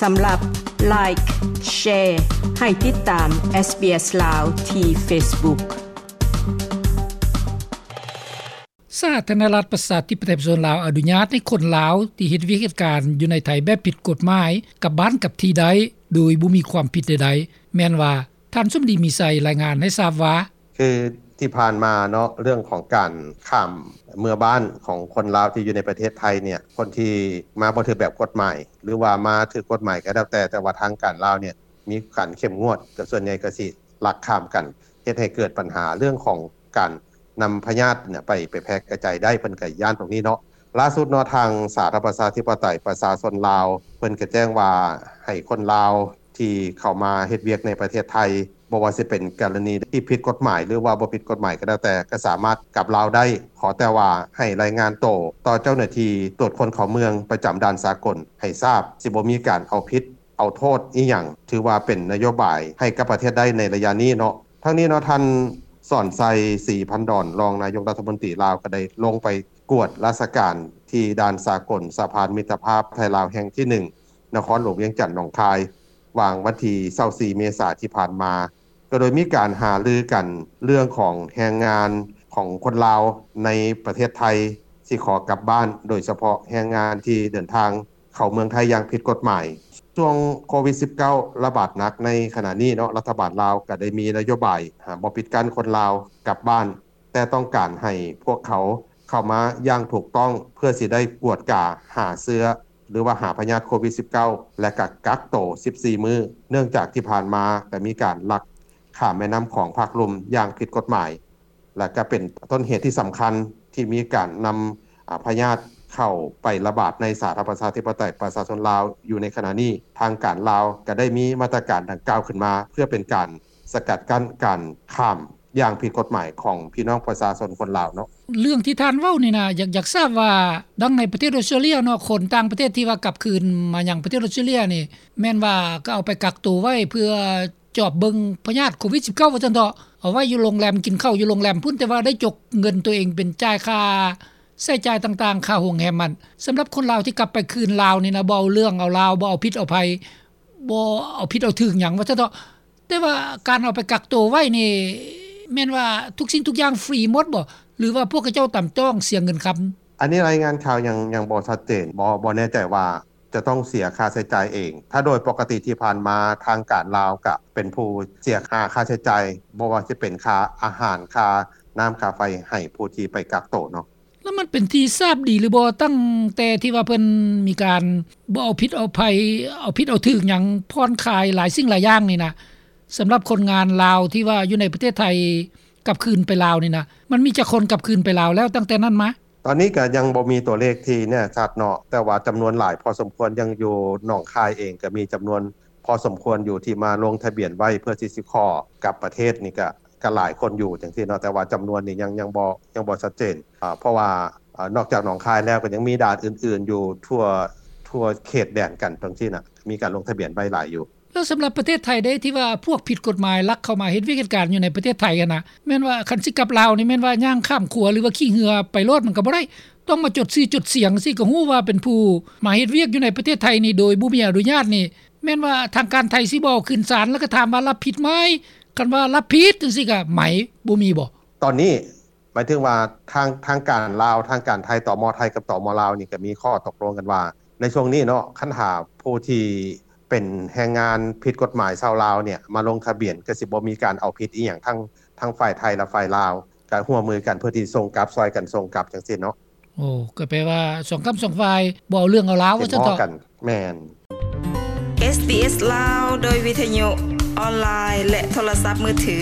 ສຳລັບ Like, Share ໃຫ້ຕິດຕາມ SBS ລາວ ທີ່ Facebook. ສາທາລະນະລັດ ປະຊາທິປະໄຕ ປະຊາຊົນລາວ ອະນຸຍາດໃຫ້ຄົນລາວ ທີ່ເຮັດວຽກເຮັດການຢູ່ໃນໄທແບບຜິດກົດໝາຍ ກັບບ້ານກັບທີ່ໄດ້ ໂດຍບໍ່ມີຄວາມຜິດໃດໆ. ແມ່ນວ່າ ທ່ານສົມດີ ມີໄຊ ລາຍງານໃຫ້ຊາບວ່າ: ຄືທີ່ຜ່ານມາເນາະ ເລື່ອງຂອງການຂ້າມເມືອບ້ານຂອງຄົນລາວທີ່ຢູ່ໃນປະເທດໄທເນ່ຍ ຄົນທີ່ມາບໍ່ຖືກແບບກົດໝາຍ ຫຼືວ່າມາຖືກກົດໝາຍກໍແລ້ວແຕ່ ແຕ່ວ່າທາງການລາວເນ່ຍມີການເຂັ້ມງວດ ກໍສ່ວນໃຫຍ່ກໍຊິລັກຂ້າມກັນ ເຮັດໃຫ້ເກີດບັນຫາເລື່ອງຂອງການນຳພະຍາດເນ່ຍໄປ ໄປແຜ່ກະຈາຍໄດ້ ເພິ່ນກໍຢ້ານຕົງນີ້ເນາະ. ລ່າສຸດເນາະ ທາງສາທາລະນະລັດ ປະຊາທິປະໄຕ ປະຊາຊົນລາວ ເພິ່ນກໍແຈ້ງວ່າ ໃຫ້ຄົນລາວທີ່ເຂົ້າມາເຮັດວຽກໃນປະເທດໄທ ບໍ່ວ່າຊິເປັນກໍລະນີທີ່ຜິດກົດໝາຍ ຫຼືວ່າບໍ່ຜິດກົດໝາຍກໍແລ້ວແຕ່ ກໍສາມາດກັບລາວໄດ້ ຂໍແຕ່ວ່າໃຫ້ລາຍງານໂຕຕໍ່ເຈົ້າໜ້າທີ່ຕວດຄົນເຂົ້າເມືອງປະຈຳດ່ານສາກົນໃຫ້ຊາບ ຊິບໍ່ມີການເອົາຜິດເອົາໂທດອີ່ຫຍັງ ຖືວ່າເປັນນະໂຍບາຍໃຫ້ກັບປະເທດໄດ້ໃນໄລຍະນີ້ເນາະ. ທັງນີ້ເນາະ ທ່ານ ສອນໄຊ ສີພັນດອນ ຮອງນາຍົກລັດຖະມົນຕີລາວ ກໍໄດ້ລົງໄປກວດລາຊະການທີ່ດ່ານສາກົນສະພານມິດຕະພາບໄທລາວແຫ່ງທີໜຶ່ງ ນະຄອນຫຼວງວຽງຈັນ ໜອງຄາຍ ຫວ່າງວັນທີຊາວສີ່ ເມສາທີ່ຜ່ານມາ ກໍໂດຍມີການຫາລືກັນເລື່ອງຂອງແຮງງານຂອງຄົນລາວໃນປະເທດໄທ ທີ່ຂໍກັບບ້ານ ໂດຍສະເພາະແຮງງານທີ່ເດີນທາງເຂົ້າເມືອງໄທຢ່າງຜິດກົດໝາຍ. ຊ່ວງໂຄວິດສິບເກົ້າ ລະບາດໜັກໃນຂະນະນີ້ເນາະ ລັດຖະບານລາວກໍໄດ້ມີນະໂຍບາຍ ຫາ ບໍ່ປິດກັ້ນຄົນລາວກັບບ້ານ ແຕ່ຕ້ອງການໃຫ້ພວກເຂົາເຂົ້າມາຢ່າງຖືກຕ້ອງ ເພື່ອຊິໄດ້ກວດກາຫາເຊື້ອ ຫຼືວ່າຫາພະຍາດໂຄວິດສິບເກົ້າ ແລະ ກະກັກໂຕສິບສີ່ມື້ ເນື່ອງຈາກທີ່ຜ່ານມາກະມີການລັກຂ້າມແມ່ນ້ຳຂອງພາກລຸ່ມຢ່າງຜິດກົດໝາຍ ແລະ ກະເປັນຕົ້ນເຫດທີ່ສຳຄັນທີ່ມີການນຳ ອາ ພະຍາດເຂົ້າໄປລະບາດໃນສາທາລະນະລັດ ປະຊາທິປະໄຕ ປະຊາຊົນລາວຢູ່ໃນຂະນະນີ້. ທາງການລາວກະໄດ້ມີມາດຕະການດັ່ງກ່າວຂຶ້ນມາ ເພື່ອເປັນການສະກັດກັ້ນການຂ້າມ ຢ່າງຜິດກົດໝາຍຂອງພີ່ນ້ອງປະຊາຊົນຄົນລາວເນາະ. ເລື່ອງທີ່ທ່ານເວົ້ານີ້ນະ ຢາກ ຢາກຊາບວ່າ ດັ່ງໃນປະເທດອອສເຕຣເລຍເນາະ ຄົນຕ່າງປະເທດທີ່ວ່າກັບຄືນມາຍັງປະເທດອອສເຕຣເລຍນີ້ ແມ່ນວ່າກໍເອົາໄປກັກໂຕໄວ້ເພື່ອຈອບເບິ່ງພະຍາດໂຄວິດສິບເກົ້າ ວ່າຊັ້ນເຖາະ ເອົາໄວ້ຢູ່ໂຮງແຮມ ກິນເຂົ້າຢູ່ໂຮງແຮມພຸ້ນ ແຕ່ວ່າໄດ້ຈົກເງິນໂຕເອງເປັນຈ່າຍຄ່າໃຊ້ຈ່າຍຕ່າງໆ ຄ່າໂຮງແຮມຫັ້ນ. ສຳລັບຄົນລາວທີ່ກັບໄປຄືນລາວນີ້ນະ ບໍ່ເອົາເລື່ອງເອົາລາວ ບໍ່ເອົາຜິດເອົາໄພ ບໍ່ເອົາຜິດເອົາຖືກຫຍັງ ວ່າຊັ້ນເຖາະ. ແຕ່ວ່າການເອົາໄປກັກໂຕໄວ້ນີ້ ແມ່ນວ່າທຸກສິ່ງທຸກຢ່າງຟຣີໝົດບໍ່ ຫຼືວ່າພວກເຂົາເຈົ້າຕຳຕ້ອງເສຍເງິນຄຳ? ອັນນີ້ລາຍງານຂ່າວຍັງ ຍັງບໍ່ຊັດເຈນ ບໍ່ ບໍ່ແນ່ໃຈວ່າຈະຕ້ອງເສຍຄ່າໃຊ້ຈ່າຍເອງ. ຖ້າໂດຍປົກກະຕິທີ່ຜ່ານມາ ທາງການລາວກະເປັນຜູ້ເສຍຄ່າ ຄ່າໃຊ້ຈ່າຍ ບໍ່ວ່າຊິເປັນຄ່າອາຫານ ຄ່ານ້ຳ ຄ່າໄຟ ໃຫ້ຜູ້ທີ່ໄປກັກໂຕເນາະ. ແລ້ວມັນເປັນທີ່ຊາບດີຫຼືບໍ່ ຕັ້ງແຕ່ທີ່ວ່າເພິ່ນມີການບໍ່ເອົາຜິດເອົາໄພ ເອົາຜິດເອົາຖືກຫຍັງ ຜ່ອນຄາຍຫຼາຍສິ່ງຫຼາຍຢ່າງນີ້ນະ ສຳລັບຄົນງານລາວທີ່ວ່າຢູ່ໃນປະເທດໄທກັບຄືນໄປລາວນີ້ນະ ມັນມີຈັກຄົນກັບຄືນໄປລາວແລ້ວຕັ້ງແຕ່ນັ້ນມາ? ຕອນນີ້ກະຍັງບໍ່ມີຕົວເລກທີ່ແນ່ຊັດເນາະ ແຕ່ວ່າຈຳນວນຫຼາຍພໍສົມຄວນ ຢ່າງຢູ່ໜອງຄາຍເອງກະມີຈຳນວນພໍສົມຄວນຢູ່ທີ່ມາລົງທະບຽນໄວ້ເພື່ອທີ່ຊິຂໍກັບປະເທດນີ້ກະ ກະຫຼາຍຄົນຢູ່ຈັ່ງຊີ້ເນາະ ແຕ່ວ່າຈຳນວນນີ້ຍັງ ຍັງບໍ່ ຍັງບໍ່ຊັດເຈນ ເພາະວ່າ ເອີ ນອກຈາກໜອງຄາຍແລ້ວ ກໍຍັງມີດ່ານອື່ນໆຢູ່ທົ່ວ ທົ່ວເຂດແດນກັນຈັ່ງຊີ້ນະ ມີການລົງທະບຽນໄວ້ຫຼາຍຢູ່. ແລ້ວສຳລັບປະເທດໄທເດ້ ທີ່ວ່າພວກຜິດກົດໝາຍລັກເຂົ້າມາເຮັດວຽກເຮັດການຢູ່ໃນປະເທດໄທຫັ້ນນະ ແມ່ນວ່າຄັນຊິກັບລາວນີ້ ແມ່ນວ່າຍ່າງຂ້າມຂົວ ຫຼືວ່າຂີ່ເຮືອໄປໂລດ ມັນກໍບໍ່ໄດ້ ຕ້ອງມາຈົດຊື່ຈົດສຽງ ຊິກໍຮູ້ວ່າເປັນຜູ້ມາເຮັດວຽກຢູ່ໃນປະເທດໄທນີ້ໂດຍບໍ່ມີອະນຸຍາດນີ້ ແມ່ນວ່າທາງການໄທຊິບໍ່ເອົາຂຶ້ນສານ ແລ້ວກໍຖາມວ່າຮັບຜິດໄໝ? ຄັນວ່າຮັບຜິດຈັ່ງຊີ້ກະໄໝ ບໍ່ມີບໍ່? ຕອນນີ້ ໝາຍເຖິງວ່າທາງ ທາງການລາວ ທາງການໄທ ຕມ ໄທກັບ ຕມ ລາວນີ້ ກໍມີຂໍ້ຕົກລົງກັນວ່າ ໃນຊ່ວງນີ້ເນາະ ຄັນຫາກຜູ້ທີ່ເປັນແຮງງານຜິດກົດໝາຍຊາວລາວເນ່ຍ ມາລົງທະບຽນ ກໍຊິບໍ່ມີການເອົາຜິດອີ່ຫຍັງ ທັງ ທັງຝ່າຍໄທ ແລະ ຝ່າຍລາວ ກໍຮ່ວມມືກັນເພື່ອທີ່ສົ່ງກັບ ຊ່ອຍກັນສົ່ງກັບຈັ່ງຊີ້ເນາະ. ໂອ້ ກໍແປວ່າສອງຂ້າງສອງຝ່າຍບໍ່ເອົາເລື່ອງເອົາລາວ ວ່າຊັ້ນເຖາະ. ແມ່ນ. ເອສບີເອສ ລາວ ໂດຍວິທະຍຸ ອອນລາຍ ແລະ ໂທລະສັບມືຖື.